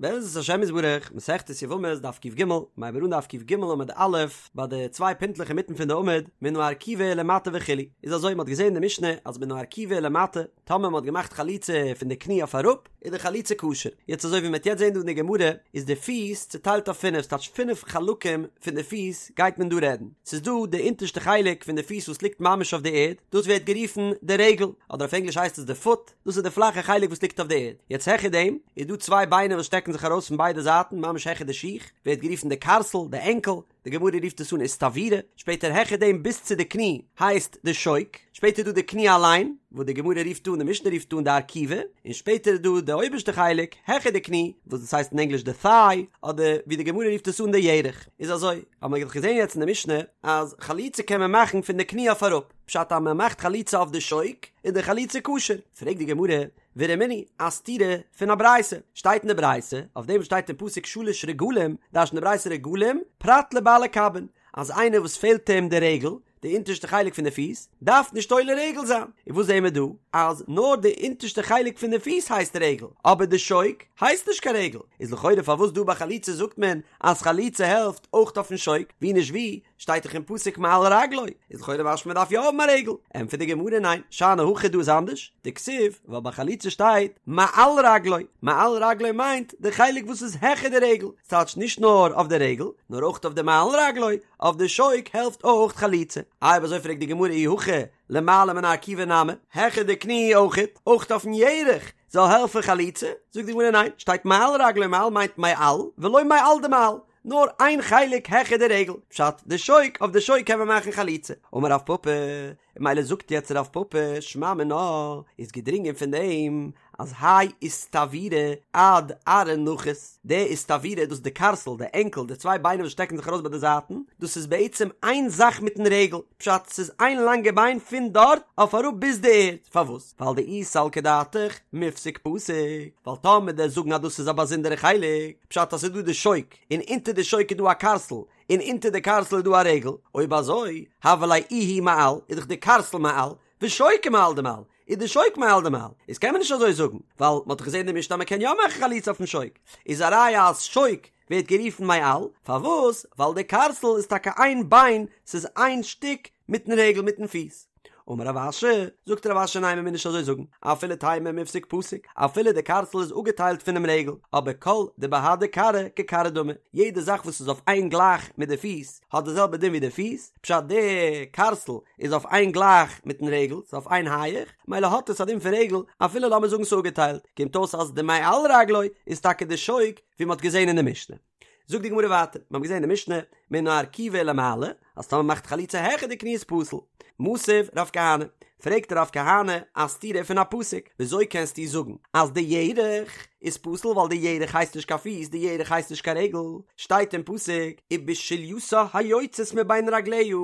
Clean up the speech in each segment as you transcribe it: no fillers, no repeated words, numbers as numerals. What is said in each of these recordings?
בעזרת השם יתברך, מסכת יבמות דף קג, מ'הייבט אן דף קג עמוד א', ביי די צוויי פינטלעך אינמיטן פון די עמוד, מן הארכובה ולמטה וכו', איז אזוי מ'האט געזען אין די משנה אז מן הארכובה ולמטה, טאמער מ'האט געמאכט חליצה פון די קני אויף אראפ, איז די חליצה כשר. יעצט אזוי ווי מ'וועט יעצט זען דא אין די גמרא, איז די פיס צוטיילט אויף פינף, ס'טייטש פינף חלקים פון די פיס גייט מען דא רעדן. ס'איז דא די אונטערשטע חלק פון די פיס וואס ליגט ממש אויף די ערד, דאס ווערט גערופן די רגל, אדער אויף ענגליש הייסט עס די פוט, דאס איז די פלאכע חלק וואס ליגט אויף די ערד. יעצט העכער דעם איז דא צוויי ביינער וואס שטעקן זיך ארויס פון ביידע זייטן ממש העכער די שיך, ווערט גערופן די קארסל, די ענקל, די גמרא רופט עס אן איסטוורא, שפעטער העכער דעם ביז צו די קני הייסט די שוק, שפעטער איז דא די קני אליין, וואס די גמרא רופט אן, די משנה רופט אן די ארכובה, און שפעטער איז דא די אויבערשטע חלק העכער די קני, וואס דאס הייסט אין ענגליש די thigh, אדער ווי די גמרא רופט עס אן די ירך. איז אזוי, האבן מיר דאך געזען יעצט אין די משנה אז חליצה קען מען מאכן פון די קני אויף אראפ, פשט אז מען מאכט חליצה אויף די שוק איז די חליצה כשר, פרעגט די גמרא, ורמינהי, א סתירה פון א ברייתא, שטייט אין די ברייתא, אויף דעם וואס שטייט אין פסוק שלש רגלים, דרש'נט די ברייתא רגלים, פרט לבעלי קבין, אז איינער וואס פעלט אים די רגל, די אונטערשטע חלק פון די פיס, דארף נישט עולה רגל זיין, און וואס זעהן מיר דא? אז נאר די אונטערשטע חלק פון די פיס הייסט רגל, אבער די שוק הייסט נישט קיין רגל, איז לכאורה פארוואס דא ביי חליצה זאגט מען אז חליצה העלפט אויך אויפן שוק, ווי נישט ווי, שטייט דאך אין פסוק מעל רגלו, איז לכאורה משמע מ'דארף יא האבן א רגל, ענטפערט די גמרא ניין, שאני הכא דא איז אנדערש, דכתיב, ווייל ביי חליצה שטייט מעל רגלו, מעל רגלו מיינט די חלק וואס איז העכער די רגל, ס'טייטש נישט נאר אויף די רגל, נאר אויך אויף די מעל רגלו, אויף די שוק העלפט אויך חליצה. איי אויב אזוי פרעגט די גמרא אי הכי למעלה מן הארכובה נמי, העכער די קני אויכעט, אויך אויפן ירך זאל העלפן חליצה, זאגט די גמרא ניין, שטייט מעל רגלו מעל מיינט מעל ולא מעל דמעל, נאר איין חלק העכער די רגל, פשט די שוק, אויף די שוק קען מען מאכן חליצה. אמר רב פפא, און ממילא זאגט יעצט רב פפא, שמע מינה, איז געדרינגען פון דעם אז האי איסטוורא עד ארעא נחית, די איסטוורא דאס איז די קארסל, די ענקל, די צוויי ביינער וואס שטעקן זיך ארויס ביי די זייטן, דאס איז בעצם איין זאך מיטן רגל, פשט ס'איז איין לאנגע ביין פון דארט אויף אראפ ביז די ערד, פארוואס? ווייל דאי סלקא דעתך מיפסק פסיק, ווייל טאמער דו'סט זאגן אז דאס איז א באזונדערע חלק, פשט אז ס'איז דא די שוק, און אונטער די שוק איז דא א קארסל, און אונטער די קארסל איז דא א רגל, אויב אזוי, הוה ליה איהו מעל, איז דאך די קארסל מעל, ושוקא מעל דמעל, איז די שוק מעל דמעל, איז קען מען נישט אזוי זאגן, ווייל מ'האט דאך געזען אין די משנה אז מ'קען יא מאכן חליצה אויפן שוק, איז א ראיה אז שוק ווערט גערופן מעל, פארוואס? ווייל די קארסל איז טאקע איין ביין, ס'איז איין שטיק מיטן רגל מיטן פיס. אמר רב אשי, זאגט רב אשי ניין מ'מוז נישט אזוי זאגן, אפילו תימא מיפסק פסיק, אפילו די קארסל איז אפגעטיילט פונעם רגל, אבער כל דבהדי כרעא ככרעא דמי, יעדע זאך וואס איז אויף איין גלייך מיט די פיס, האט די זעלבע דין ווי די פיס, פשט די קארסל איז אויף איין גלייך מיטן רגל, ס'איז אויף איין הייעך, מילא האט עס א דין פון רגל, אפילו לאמיר זאגן ס'איז אפגעטיילט, קומט אויס אז די מעל רגלו איז טאקע די שוק ווי מ'האט געזען אין די משנה. זאגט די גמרא ווייטער, מיר האבן געזען אין די משנה, מן הארכובה ולמעלה, אז טאמער מ'מאכט חליצה העכער די קני איז פסול. מתיב רב כהנא, פרעגט רב כהנא א סתירה פון א פסוק, וויאזוי קענסטו זאגן אז די ירך איז פסול ווייל די ירך הייסט נישט קיין פיס, די ירך הייסט נישט קיין רגל, שטייט אין פסוק ובשולייתה היוצאת מבין רגליה,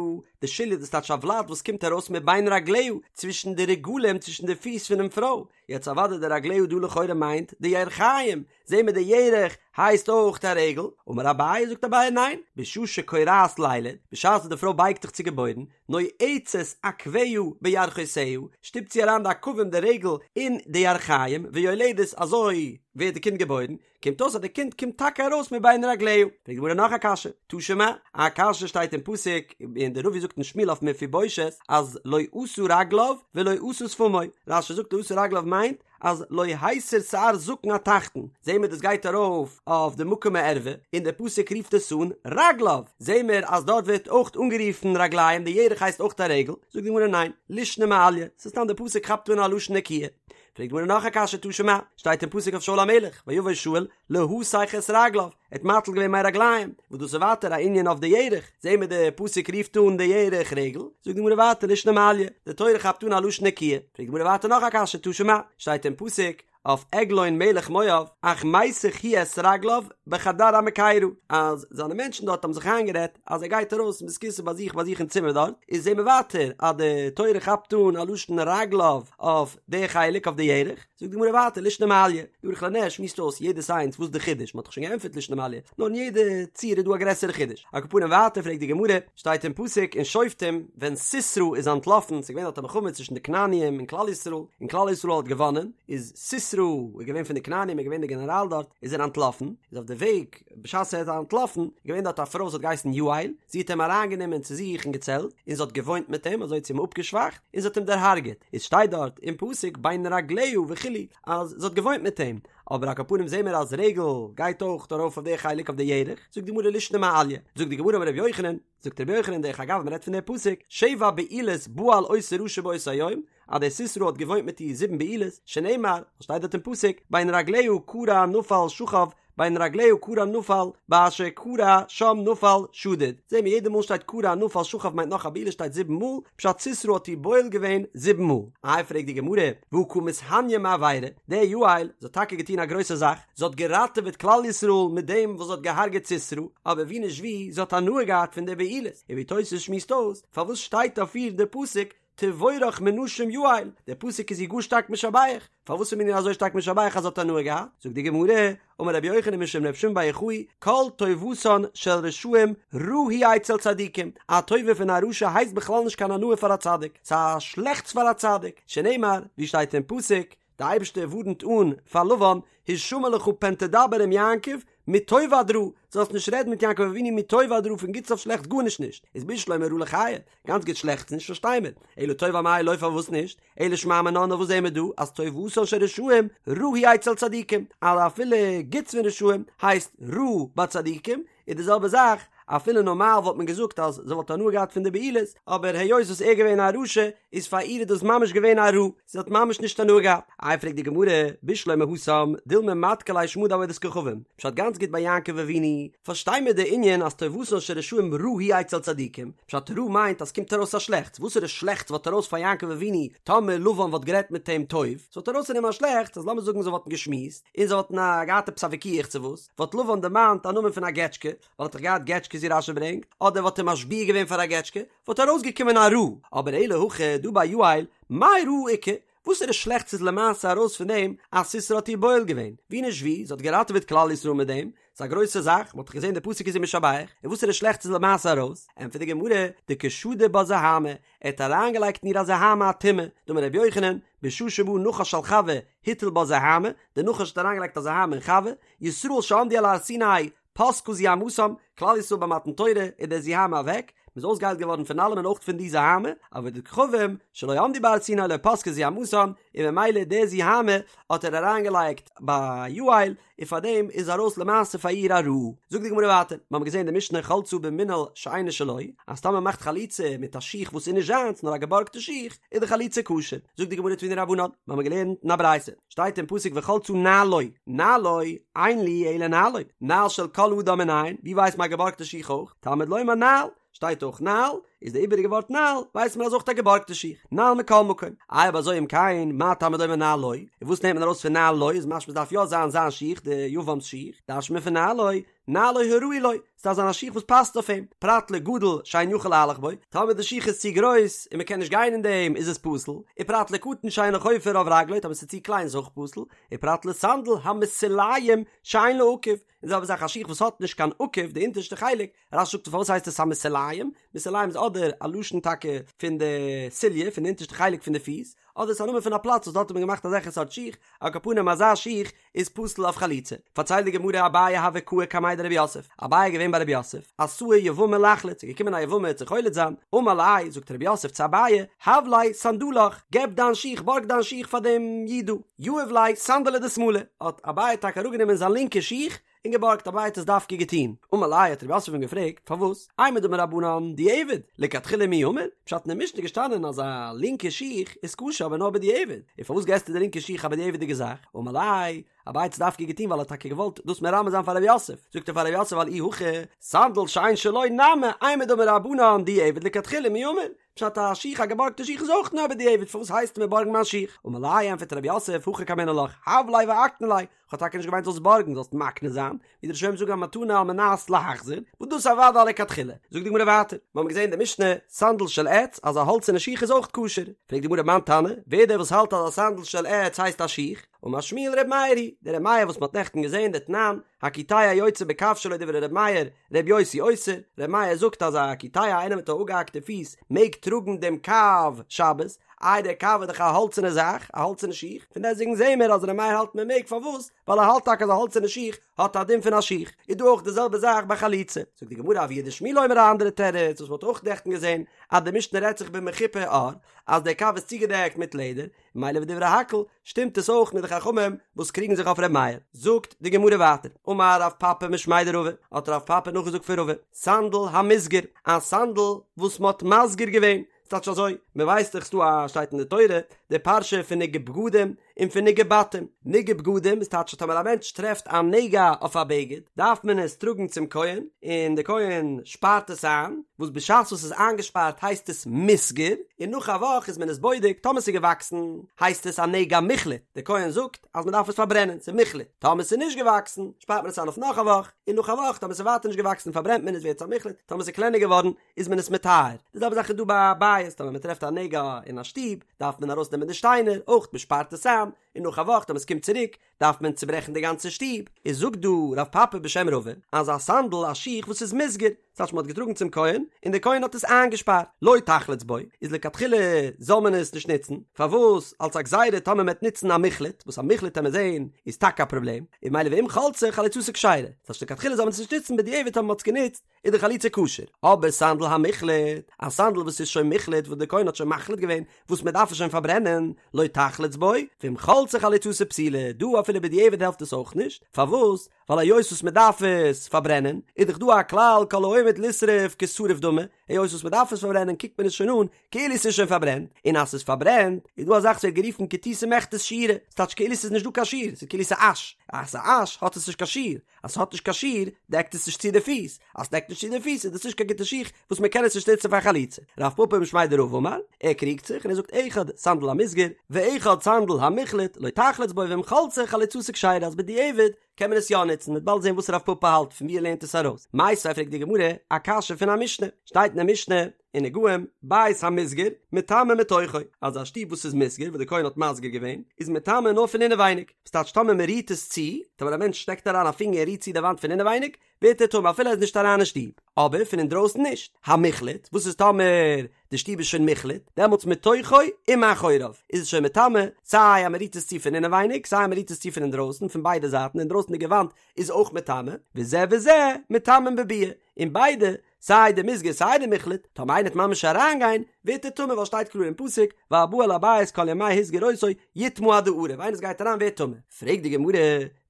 די שוליא דאס טייטש א ולד וואס קומט ארויס מבין רגליה, צווישן די רגלים צווישן די פיס פונעם פרוי, יעצט אוודאי די רגליה דא לכאורה מיינט די ירכיים, זעהן מיר די ירך הייסט אויך א רגל, אמר אביי זאגט אביי ניין, בשעה שכורעת לילד, בשעת וואס די פרוי בייגט זיך צו געבוירן, נועצת עקביה בירכותיה, שטופט זי אריין די עקבים די רגל אין די ירכיים, ויולדת אזוי ווערט די קינד געבוירן, קומט אויס אז די קינד קומט טאקע ארויס מבין רגליה. פרעגט די גמרא נאך א קשיא, תא שמע, א קשיא שטייט אין פסוק, און דער נביא זאגט אין שמואל אויף מפיבושת אז לא עשה רגליו ולא עשה שפמו, רש"י זאגט לא עשה רגליו מיינט אז לא הסיר שער זקן התחתון, זעהן מיר דאס גייט ארויף אויף די מקום הערווה, און דער פסוק רופט עס אן רגליו, זעהן מיר אז דארט ווערט אויך אנגערופן רגליים, די ירך הייסט אויך א רגל, זאגט די גמרא ניין, לישנא מעליא, ס'איז סתם דער פסוק כאפט אן א לשון נקיה. פרעגט די גמרא נאך א קשיא תא שמע, שטייט אין פסוק אויף שאול המלך, ויבא שאול להתך את רגליו, ער האט מטיל געווען מי רגליים, וואס דאס איז ווייטער א ענין אויף די ירך, זעהן מיר די פסוק רופט אן די ירך רגל, זאגט די גמרא ווייטער לישנא מעליא, די תורה כאפט אן א לשון נקיה, פרעגט די גמרא ווייטער נאך א קשיא תא שמע, שטייט אין פסוק אויף עגלון מלך מואב, אך מיסך הוא את רגליו בחדר המקירה, אז זיינע מענטשן דארט האבן זיך איינגערעדט אז ער גייט ארויס אין בית הכסא ביי זיך ביי זיך אין צימער דארט, איז זעהן מיר ווייטער אז די תורה כאפט אן א לשון רגליו אויף די חלק אויף די ירך. זאגט די גמרא ווייטער לישנא מעליא, די ערוך לנר שמועסט אויס יעדעס איינס וואס די חידוש, מען האט דאך שוין געענטפערט לישנא מעליא, נאר אין יעדע ציור איז דא א גרעסערע חידוש, על כל פנים ווייטער פרעגט די גמרא, שטייט אין פסוק אין שופטים ווען סיסרא איז אנטלאפן, ס'איז געווען דארט א מלחמה צווישן די כנעניים און כלל ישראל, און כלל ישראל האט געוואנען, איז סיסרא איז געווען פון די כנעניים איז געווען די גענעראל דארט, איז ער אנטלאפן, איז אויף די וועג בשעת ער איז אנטלאפן, איז געווען דארט א פרוי וואס האט געהייסן יעל, זי האט אים אריינגענומען צו זיך אין געצעלט, און זי האט געוואוינט מיט אים, אזוי האט זי אים אפגעשוואכט, און זי האט אים דערהארגעט, איז שטייט דארט אין פסוק בין רגליה וכו' אז זי האט געוואוינט מיט אים, אבער על כל פנים זעהן מיר אז רגל גייט אויך ארויף אויף די חלק אויף די ירך, זאגט די גמרא לישנא מעליא, זאגט די גמרא אמר רבי יוחנן, זאגט רבי יוחנן דרך אגב מען רעדט פון די פסוק, שבע בעילות בעל אותו רשע באותו היום, אז דער סיסרא האט געוואוינט מיט איר זיבן בעילות, שנאמר, וואס שטייט דארט אין פסוק, בין רגליה כרע נפל שכב, בין רגליה כרע נפל, באשר כרע שם נפל שדוד. זעהן מיר יעדע מאל שטייט כרע נפל שכב מיינט נאך א בעילה שטייט זיבן מאל, פשט סיסרא האט איר בועל געווען זיבן מאל. איי פרעגט די גמרא, והא קא מתהניא מעבירה, די יעל, זי האט טאקע געטון א גרויסע זאך, זי האט געראטעוועט כלל ישראל מיט דעם וואס זי האט געהארגעט סיסרא, אבער ווי נישט ווי, זי האט הנאה געהאט פון די בעילות, און ווי תוס' שמועסט אויס, פארוואס שטייט אויף איר די פסוק תבורך מנשים יעל, דער פסוק איז איר גאר שטארק משבח, פארוואס איז מען איר אזוי שטארק משבח אז זי האט הנאה געהאט? זאגט די גמרא, אמר רבי יוחנן משום רבי שמעון בר יוחאי, כל טובתן של רשעים רעה היא אצל צדיקים, א טובה פון א רשע הייסט בכלל נישט קיין הנאה פאר א צדיק, ס'איז א שלעכטס פאר א צדיק, שנאמר, ווי שטייט אין פסוק, די אייבערשטער ווארנט אן פאר לבן, השמר לך פן תדבר עם יעקב, מטוב עד רע, זאלסט נישט רעדן מיט יעקב אבינו מטוב עד רע פון גוטס אויף שלעכטס גארנישט נישט, איז בשלמא רע לחיי, גאנץ גוט שלעכטס נישט פארשטיי מיר, אלא טוב אמאי לא פארוואס נישט, אלא שמע מינה נאר וואס זעהן מיר דא אז טובתן של רשעים רעה היא אצל צדיקים, אז אפילו גוטס פון רשעים הייסט רע ביי צדיקים, איז די זעלבע זאך, אפילו נארמאל וואלט מען געזאגט אז זי וואלט הנאה געהאט פון די בעילות, אבער היות וואס ער געווען א רשע, איז פאר איר איז דאס ממש געווען א רע, זי האט ממש נישט הנאה געהאט. איי פרעגט די גמרא, בשלמא התם, דילמא מדכר ליה שמא דעבודת כוכבים, פשט גאנץ גוט ביי יעקב אבינו, פארשטיי מיר די ענין אז טובתן של רשעים רעה היא אצל צדיקים, פשט רע מיינט אז ס'קומט ארויס א שלעכטס, וואסערע שלעכטס וואלט ארויס פאר יעקב אבינו טאמער לבן וואלט גערעדט מיט אים טוב, ס'וואלט ארויס פון אים א שלעכטס אז לאמיר זאגן זיי וואלטן געשמועסט, און זיי וואלטן געהאט עפעס א וויכוח צו וואס, וואלט לבן דערמאנט א נאמען פון א געטשקע, ווייל ער האט דאך געהאט געטשקעס ווי רש"י ברענגט, אדער וואלט ער משביע געווען פאר א געטשקע, וואלט ארויסגעקומען א רע, אבער אלא הכא דא ביי יעל, מאי רעה איכא, וואסערע שלעכטס איז למעשה ארויס פון דעם אז סיסרא האט איר בועל געווען? ווי נישט ווי, זי האט געראטעוועט כלל ישראל מיט דעם, ס'איז א גרויסע זאך, מ'האט דאך געזען די פסוק איז איר משבח, און וואסערע שלעכטס איז למעשה ארויס? ענטפערט די גמרא, דקא שדי בה זוהמא, ער האט אריינגעלייגט אין איר א זוהמא א טומאה, דאמר רבי יוחנן, בשעה שבא נחש על חוה, הטיל בה זוהמא, דער נחש האט אריינגעלייגט א זוהמא אין חוה, ישראל שעמדו על הר סיני, פסקה זוהמתם, כלל ישראל ביי מתן תורה איז דער זוהמא אוועק, מ'איז אויסגעהיילט געווארן פון אלעם און אויך פון די זוהמא, עובדי כוכבים, שלא עמדו בהר סיני לא פסקה זוהמתם, און ממילא די זוהמא האט ער אריינגעלייגט ביי יעל, און פאר דעם איז ארויס למעשה פאר איר א רע. זאגט די גמרא ווייטער, מיר האבן געזען אין די משנה חלצה במנעל שאינו שלו, אז טאמער מ'מאכט חליצה מיט א שיך וואס איז נישט זיינס נאר א געבארגטע שיך, איז די חליצה כשר. זאגט די גמרא תנו רבנן, מיר האבן געלערנט אין א ברייתא, שטייט אין פסוק וחלצה נעלו, נעלו, אין לי אלא נעלו, נעל של כל אדם מנין, ווי ווייסט מען א געבארגטע שיך אויך? תלמוד לומר נעל, שטייט אויך נעל, איז די איבעריגע ווארט נעל, ווייסט מען אז אויך א געבארגטע שיך, נעל מכל מקום. איי אויב אזוי אם כן, מה תלמוד לומר נעלו, און וואס נעמט מען ארויס פון נעלו, איז משמע ס'דארף יא זיין זיין שיך, די יבם'ס שיך, דרש'נט מען פון נעלו, נעלו הראוי לו, ס'דארף זיין א שיך וואס פאסט אויף אים, פרט לגדול שאין יכול להלך בו, טאמער די שיך איז צו גרויס און מ'קען נישט גיין אין דעם איז עס פסול, ופרט לקטן שאינו חופה רוב רגלו, טאמער ס'איז צו קליין איז אויך פסול, ופרט לסנדל המסוליים שאין לו עקב, און די זעלבע זאך א שיך וואס האט נישט קיין עקב, די אונטערשטע חלק, רש"י זאגט פארוואס הייסט עס המסוליים, מסוליים איז אדער א לשון טאקע פון די סוליה, פון די אונטערשטע חלק פון די פיס, אדער ס'איז א נאמען פון א פלאץ וואס דארט האט מען געמאכט אזעלכע סארט שיך, על כל פנים אזא שיך איז פסול אויף חליצה. פארציילט די גמרא אביי הוה קאי קמיה דרב יוסף, אביי איז געווען ביי רב יוסף, אתאי יבמה לחלוץ, איז געקומען א יבמה צו חולץ זיין, אמר ליה, זאגט רב יוסף צו אביי, הב ליה סנדלך, געב דיין שיך, בארג דיין שיך פאר דעם איד דא, יהב ליה סנדלא דשמאלא, האט אביי טאקע אראפגענומען זיין לינקע שיך, און געבארגט, אביי האט עס דווקא געטון. אמר ליה האט רב יוסף אים געפרעגט, פארוואס? אימר דאמור רבנן דיעבד, לכתחילה מי אמור? פשט אין די משנה איז געשטאנען אז א לינקע שיך איז כשר אבער נאר בדיעבד, און פארוואס געסטו די לינקע שיך א בדיעבד'יגע זאך? אמר ליה, אביי האט עס דווקא געטון ווייל ער האט טאקע געוואלט דאס מרמז זיין פאר רב יוסף, זאגט ער פאר רב יוסף ווייל אי הכי, סנדל שאין שלו נמי, אימר דאמור רבנן דיעבד לכתחילה מי אמור? פשט א שיך א געבארגטע שיך איז אויך נאר בדיעבד פארוואס הייסטו מיר בארגן מיין שיך? אמר ליה ענפערט רב יוסף הכי קאמינא לך, הב ליה ואקני ליה. כ'האב טאקע נישט געמיינט זאלסט בארגן, זאלסט מקנה זיין, ווי די ראשונים זאגן א מתנה על מנת להחזיר, וואס דאס אוודאי לכתחילה. זאגט די גמרא ווייטער, מיר האבן געזען אין די משנה, סנדל של עץ, אז א האלצערנע שיך איז אויך כשר. פרעגט די גמרא מאן תנא, ווער דער וואס האלט אז א סנדל של עץ הייסט א שיך? אמר שמואל ר' מאיר היא, דער ר' מאיר וואס מען האט נעכטן געזען דתנן, הקיטע יוצא בקב שלו דברי ר' מאיר, ר' יוסי אוסר, ר' מאיר זאגט אז א קיטע איינער מיט א אפגעהאקטע פיס מעג טראגן דעם קב שבת, איי דער קב איז דאך א האלצערנע זאך, א האלצערנע שיך, פון דעסטוועגן זעהן מיר אז ר' מאיר האלט מען מעג, פארוואס? ווייל ער האלט טאקע אז א האלצערנע שיך האט א דין פון א שיך, איז דא אויך די זעלבע זאך ביי חליצה. זאגט די גמרא אבוה דשמואל אומר א אנדערע תירוץ וואס מען האט אויך נעכטן געזען אז די משנה רעדט זיך במחופה עור אז דער קב איז צוגעדעקט מיט לעדער, ממילא ודברי הכל שטימט עס אויך מיט די חכמים וואס קריגן זיך אויף ר' מאיר. זאגט די גמרא ווייטער, אמר רב פפא משמיה דרבא, האט רב פפא נאכגעזאגט פון רבא, סנדל המוסגר, א סנדל וואס מען האט מסגיר געווען, ס'טייטש אזוי, מען ווייסט דאך ס'דא א שטייט אין די תורה די פרשה פון נגעי בגדים און פון נגעי בתים, נגעי בגדים איז טייטש אז טאמער א מענטש טרעפט א נגע אויף א בגד דארף מען עס טראגן צום כהן און די כהן שפארט עס איין, וואס בשעת וואס ס'איז איינגעשפארט הייסט עס מוסגר, און נאך א וואך איז מען עס בודק טאמער ס'איז געוואקסן הייסט עס א נגע מוחלט, די כהן זאגט אז מען דארף עס פארברענען ס'איז מוחלט, טאמער ס'איז נישט געוואקסן שפארט מען עס איין אויף נאך א וואך, און נאך א וואך טאמער ס'איז ווייטער נישט געוואקסן פארברענט מען עס ווערט עס א מוחלט, טאמער ס'איז קלענער געווארן איז מען עס מטהר. די זעלבע זאך איז דא ביי א בית, טאמער מען טרעפט א נגע אין א שטוב, דארף מען ארויסנעמען די שטיינער, אויך מען שפארט עס איין, און נאך א וואך טאמער עס קומט צוריק, דארף מען צוברעכן די גאנצע שטוב. איז זאגט דא רב פפא בשם רבא, אז א סנדל, א שיך וואס איז מוסגר, ס'טייטש מען האט געטראגן צום כהן, און דער כהן האט עס איינגעשפארט, לא תחלוץ בו, איז לכתחילה זאל מען עס נישט נוצן, פארוואס? אלס א גזירה טאמער מען וועט נוצן א מוחלט, וואס א מוחלט וועט מען זען איז טאקע א פראבלעם, און ממילא ואם חלצה חליצתה כשרה, ס'טייטש לכתחילה זאל מען עס נישט נוצן בדיעבד טאמער מען האט עס גענוצט, איז די חליצה כשר, אבער סנדל המוחלט, א סנדל וואס איז שוין מוחלט וואס די כהן האט שוין מחליט געווען וואס מען דארף עס שוין פארברענען, לא תחלוץ בו, ואם חלצה חליצתה פסולה, דא אפילו בדיעבד העלפט עס אויך נישט, פארוואס? ווייל היות וואס מען דארף עס פארברענען, איז דאך דא א כלל כל העומד לשרוף כשרוף דמי, היות וואס מען דארף עס פארברענען קוקט מען עס שוין אן כאילו עס איז שוין פארברענט, און אז ס'איז פארברענט איז דא א זאך וואס ווערט גערופן כתותי מיכתת שיעורא, ס'טייטש כאילו ס'איז נישט דא קיין שיעור, ס'איז כאילו ס'איז אש, אז ס'איז אש האט עס נישט קיין שיעור, אז ס'האט נישט קיין שיעור, דעקט עס נישט צו די פיס, אז ס'דעקט נישט צו די פיס איז דאס נישט קיין גוטע שיך וואס מ'קען עס נישט נוצן פאר חליצה. רב פפא משמיה דרבא אמר, ער קריגט זיך און ער זאגט אחד סנדל המוסגר ואחד סנדל המוחלט לא תחלוץ בו ואם חלצה חליצתה כשרה אז בדיעבד קען מען עס יא נוצן, מ'וועט באלד זען וואס רב פפא האלט פון ווי ער לערנט עס ארויס. מיתיבי פרעגט די גמרא א קשיא פון א משנה, שטייט אין די משנה, אין נגעים, בית המוסגר, מטמא מתוכו, אז א שטוב וואס איז מוסגר, וואס די כהן האט מסגיר געווען, איז מטמא נאר פון אינעווייניג, וואס טייטש טאמער מען רירט עס צו, טאמער א מענטש שטעקט אריין א פינגער און רירט צו די וואנט פון אינעווייניג, ווערט ער טמא אפילו ער איז נישט אריין אין שטוב, אבער פון אינדרויסן נישט. המוחלט, וואס איז טאמער די שטוב איז שוין מוחלט, דעמאלטס מתוכו ומאחוריו, איז עס שוין מטמא, סיי אז מען רירט עס צו פון אינעווייניג, סיי אז מען רירט עס צו פון אינדרויסן, פון ביידע זייטן, די אינדרויסנדיגע וואנט איז אויך מטמא, וזה וזה מטמאין בביאה, און ביידע סיי די מוסגר סיי די מוחלט, טאמער איינער וועט ממש אריינגיין, ווערט ער טמא ווייל שטייט קלאר אין פסוק, והבא אל הבית כל ימי הסגיר אותו יטמא עד הערב, איינער וואס גייט אריין ווערט טמא. פרעגט די גמרא,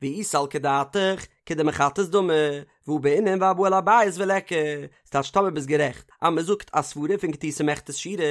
ואי סלקא דעתך, כדמחטת דמי, והא בעינן והבא אל הבית וליכא, ס'טייטש טאמער ביסט גערעכט אז מ'זאגט א סברא פון כתותי מיכתת שיעורא,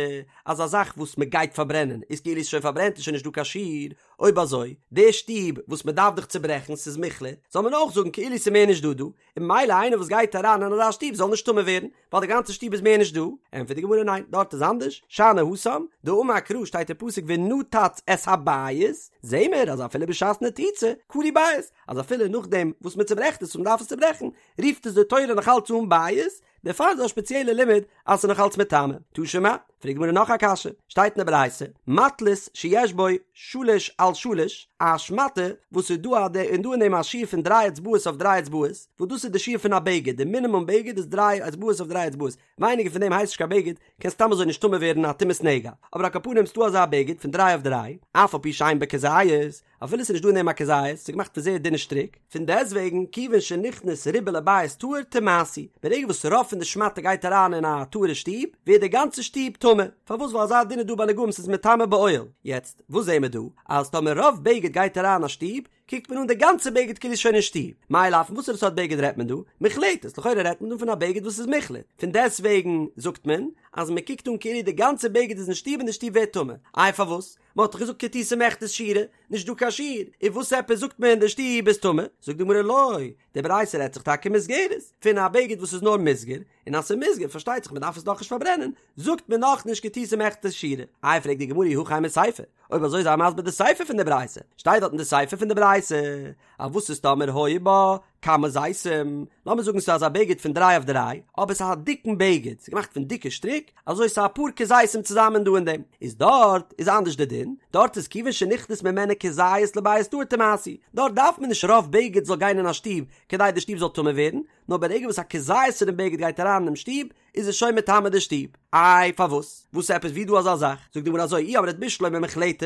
אז א זאך וואס מ'גייט פארברענען איז כאילו איז שוין פארברענט איז שוין נישט דא קיין שיעור, אויב אזוי, די שטוב וואס מ'דארף דאך צוברעכן ס'איז מוחלט, זאל מען אויך זאגן כאילו ס'איז מער נישט דא דא, און ממילא איינער וואס גייט אריין אין אזא שטוב זאל נישט טמא ווערן, ווייל די גאנצע שטוב איז מער נישט דא, ענטפערט די גמרא ניין, דארט איז אנדערש, שאני התם, דאמר קרא שטייט אין פסוק ונתץ את הבית, זעהן מיר אז אפילו בשעת נתיצה, קרוי בית, אז אפילו נאכדעם וואס מען צוברעכט עס און מען דארף עס צוברעכן, רופט עס די תורה נאכאלץ אן בית, דערפאר איז דא א שפעציעלע לימוד אז ס'איז נאך אלץ מטמא. תא שמע, פרעגט די גמרא נאך א קשיא, שטייט אין די ברייתא, מטלית שיש בו שלש על שלש, א שמאטע וואס איז דא א און דא אין דעם א שיעור פון דריי אצבעות אויף דריי אצבעות, וואס דאס איז די שיעור פון א בגד, די מינימום בגד איז דריי אצבעות אויף דריי אצבעות, ווייניגער פון דעם הייסט נישט קיין בגד, קען סתם אזוי נישט טמא ווערן א טומאת נגע, אבער על כל פנים ס'דא אזא בגד פון דריי אויף דריי, אף על פי שאין בו כזית, אפילו ס'איז נישט דא אין דעם א כזית, ס'איז געמאכט פון זייער דינע שטריק, פון דעסטוועגן, כיוון שנכנס רובה לבית טהור טמאתהו, ברגע וואס רוב פון די שמאטע גייט אריין אין א טהור'ע שטוב, ווערט די גאנצע שטוב טמא. פארוואס? ווייל אזא דין איז דא ביי נגעים ס'איז מטמא באוהל. יעצט, וואס זעהן מיר דא? אז טאמער רוב בגד גייט אריין אין א שטוב, קוקט מען אן די גאנצע בגד כאילו איז שוין אין שטוב. מאי לאו, פון וואסערע סארט בגד רעדט מען דא? מוחלטת, לכאורה רעדט מען דא פון א בגד וואס איז מוחלט. פון דעסטוועגן זאגט מען, אז מען קוקט אן כאילו די גאנצע בגד איז אין שטוב און די שטוב ווערט טמא. איי פארוואס? מען האט דאך געזאגט כתותי מיכתת שיעורא, נישט דא קיין שיעור, און וואס עפעס זאגט מען די שטוב איז טמא? זאגט די גמרא לא, די ברייתא רעדט זיך טאקע מוסגרת, פון א בגד וואס איז נאר מוסגר, און אז ס'איז מוסגר פארשטייט זיך מען דארף עס נאכנישט פארברענען, זאגט מען נאכנישט כתותי מיכתת שיעורא. איי פרעגט די גמרא אי הכי אימא סיפא, אויב אזוי זיי מסביר די סיפא פון די ברייתא, שטייט דארט אין די סיפא פון די ברייתא אז וואס איז טאמער היו בה כמה זיתים, לאמיר זאגן ס'איז אזא בגד פון דריי אויף דריי, אבער ס'איז א דיקן בגד, ס'איז געמאכט פון דיקע שטריק, אזוי ס'איז אפאר כזיתים צוזאמען דא אין דעם, איז דארט איז אנדערש די דין, דארט איז כיוון שנכנס ממנה כזית לבית טהור טמאתהו, דארט דארף מען נישט רוב בגד זאל גיין אין א שטוב כדי די שטוב זאל טמא ווערן, נאר ברגע וואס א כזית פונעם בגד גייט אריין אינעם שטוב, איז עס שוין מטמא די שטוב. איי פארוואס? וואס עפעס ווי דא אזא זאך? זאגט די גמרא אזוי אי אמרת בשלמא מוחלטת,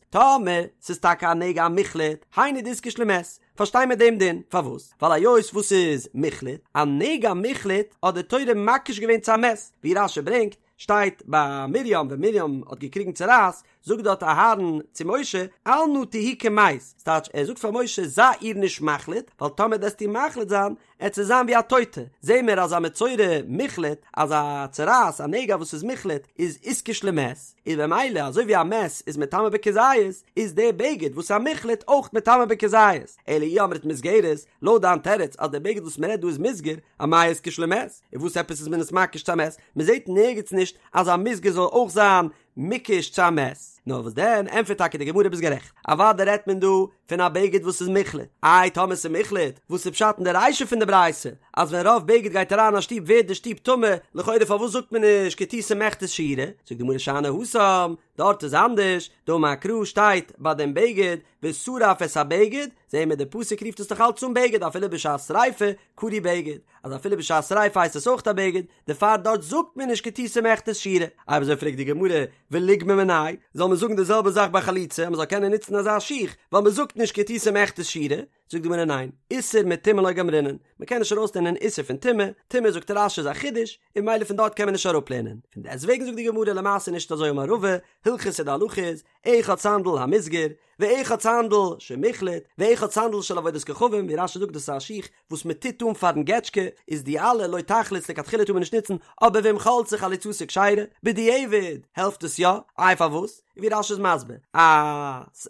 טאמער ס'איז טאקע א נגע א מוחלט, היינו דאיתקש למת, פארשטיי מיר דעם דין, פארוואס? ווייל היות וואס ס'איז מוחלט, א נגע מוחלט האט די תורה מקיש געווען צו א מת, ווי רש"י ברענגט, שטייט ביי מרים ווען מרים האט געקריגן צרעת, זאגט דארט אהרן צו משה, אל נא תהי כמת, ס'טייטש ער זאגט פאר משה זיי איר נישט מחליט, ווייל טאמער וועסטו מחליט זיין, עט זי זיין ווי א טויטע, זעהן מיר אז א מצורע מוחלט, אז א צרעת, א נגע וואס איז מוחלט, איז איתקש למת, איז במילא אזוי ווי א מת איז מטמא בכזית, איז דער בגד וואס איז א מוחלט אויך מטמא בכזית, אלא אי אמרת מוסגרת, לויט דיין תירוץ אז דער בגד וואס מ'רעדט דא איז מוסגר, אמאי איתקש למת, און וואס עפעס איז מען עס מקיש צו א מת, מ'זעהט נערגעץ נישט אז א מוסגר זאל אויך זיין מוקש צו א מת. נאר וואס דען, ענטפערט טאקע די גמרא ביסט גערעכט, אוודאי רעדט מען דא פון א בגד וואס איז מוחלט, איי טאמער ס'איז מוחלט, וואס איז פשט אין די רישא פון די ברייתא אז ווען רוב בגד גייט אריין אין א שטוב ווערט די שטוב טמא, לכאורה פארוואס זאגט מען נישט כתותי מיכתת שיעורא, זאגט די גמרא שאני התם, דארט איז אנדערש, דאמר קרא שטייט ביי דעם בגד ושרף את הבגד, זעהן מיר די פסוק רופט עס דאך אלץ אן בגד אפילו בשעת שריפה קרוי בגד, אז אפילו בשעת שריפה הייסט עס אויך א בגד, דערפאר דארט זאגט מען נישט כתותי מיכתת שיעורא. אויב אזוי פרעגט די גמרא, וליגמר מיניה, זאל מען זאגן די זעלבע זאך ביי חליצה אז מען זאל קענען נוצן אזא שיך, ווייל מען זאגט נישט כתותי מיכתת שיעורא, זאגט די גמרא ניין, איסור מטומאה לא גמרינן, מען קען נישט ארויסלערנען איסור פון טומאה, טומאה זאגט רש"י איז א חידוש, און ממילא פון דארט קען מען נישט אראפלערנען, פון דעסטוועגן זאגט די גמרא למעשה נישט אזוי אמר רבא, הלכתא די הלכה איז, אחד סנדל המוסגר, ואחד סנדל שמוחלט, ואחד סנדל של עבודת כוכבים, ווי רש"י זאגט דאס איז א שיך וואס מען טוט אן פארן געטשקע, איז די אלע לא תחלוץ לכתחילה טאר מען נישט נוצן, אבער ואם חלצה חליצתה כשרה, בדיעבד העלפט עס יא, איי פארוואס? ווי רש"י איז מסביר, א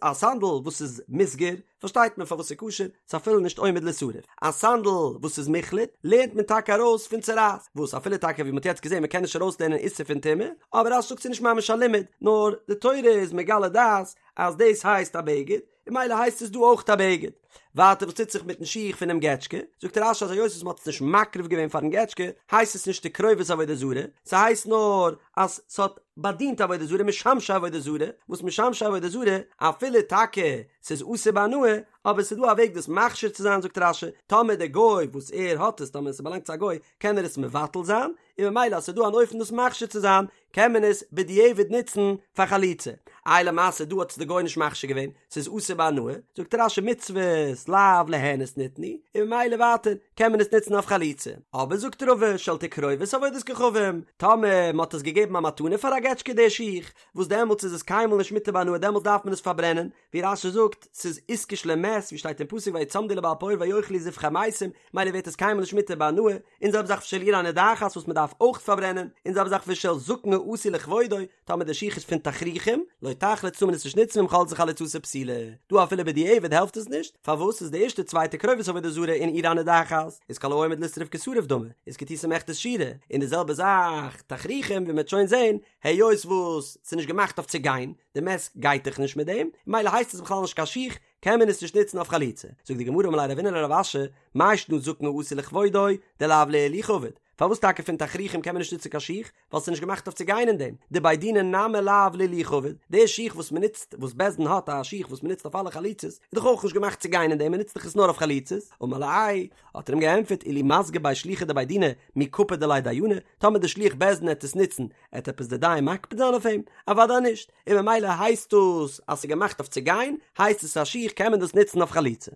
א סנדל וואס איז מוסגר, פארשטייט מען פארוואס ס'איז כשר, ס'איז אפילו נישט עומד לישרף. א סנדל וואס איז מוחלט, לערנט מען טאקע ארויס פון צרעת, וואס אפילו טאקע ווי מ'האט יעצט געזען מ'קען נישט ארויסלערנען איסור פון טומאה, אבער רש"י זאגט ס'איז נישט ממש א לימוד, נאר די תורה איז מגלה דעת אז דאס הייסט א בגד, און ממילא הייסט עס דא אויך א בגד. ווייטער וואס טוט זיך מיטן שיך פונעם געטשקע, זאגט רש"י אז היות וואס מ'האט עס נישט מקריב געווען פארן געטשקע, הייסט עס נישט תקרובת עבודה זרה, ס'הייסט נאר אז ס'האט באדינט עבודה זרה משמשי עבודה זרה, וואס משמשי עבודה זרה, אפילו טאקע ס'איז אסור בהנאה, אבער ס'איז דא א וועג דאס מכשיר צו זיין זאגט רש"י, טאמער דער גוי וואס ער האט עס, טאמער ס'באלאנגט צו א גוי, קען ער עס מבטל זיין, און ממילא אז ס'איז דא אן אופן דאס מכשיר צו זיין, קען מען עס בדיעבד נוצן פאר חליצה. איי למעשה דא האט עס די גוי נישט מכשיר געווען, ס'איז אסור בהנאה, זאגט רש"י מצוות לאו ליהנות ניתנו, און ממילא ווייטער קען מען עס נוצן אויף חליצה. אבער זאגט רבא של תקרובת עבודת כוכבים, טאמער מ'האט עס געגעבן א מתנה פאר א געטשקע די שיך, וואס דעמאלטס איז עס קיינמאל נישט מותר בהנאה דעמאלטס דארף מען עס פארברענען, ווי רש"י זאגט, ס'איז איתקש למת, ווי שטייט אין פסוק ויצמדו לבעל פעור ויאכלו זבחי מתים, ממילא ווערט עס קיינמאל נישט מותר בהנאה, און זעלבע זאך ושל עיר הנידחת וואס מ'דארף אויך פארברענען, און זעלבע זאך ושל זקן העשוי לכבודו, טאמער די שיך איז פון תכריכים, לא תחלוץ טאר מען עס נישט נוצן ואם חלצה חליצתה פסולה. דא אפילו בדיעבד העלפט עס נישט, פארוואס איז די ערשטע צוויי תקרובת עבודה זרה און עיר הנידחת, איז כל העומד לישרף כשרוף דמי, איז כתותי מיכתת שיעורא, און די זעלבע זאך תכריכים ווי מ'וועט שוין זען, היות וואס ס'איז נישט געמאכט אויף צו גיין, די מת גייט דאך נישט מיט דעם, ממילא הייסט עס בכלל נישט קיין שיך, קען מען עס נישט נוצן אויף חליצה. זאגט די גמרא אמר ליה רבינא לרב אשי, מאי שנא זקן העשוי לכבודו, דלאו להילוכא עביד, פארוואס טאקע פון תכריכים קען מען נישט נוצן קיין שיך? ווייל ס'איז נישט געמאכט אויף צו גיין אין דעם. דבי דינא נמי לאו להילוכא עביד, די שיך וואס מ'נוצט, וואס בית דין האט א שיך וואס מ'נוצט אויף אלע חליצות, איז דאך אויך נישט געמאכט צו גיין אין דעם, מ'נוצט דאך עס נאר אויף חליצות. אמר ליה, האט ער אים געענטפערט, אילו מסגי ביה שליחא דבי דינא, מי קפיד עליה דיינא, טאמער די שליח בית דין עט עס נוצן, עט עפעס די דיין מקפיד זיין אויף אים? אוודאי נישט, און ממילא הייסט דאס אז ס'איז געמאכט אויף צו גיין, הייסט עס א שיך קען מען דאס נוצן אויף חליצה.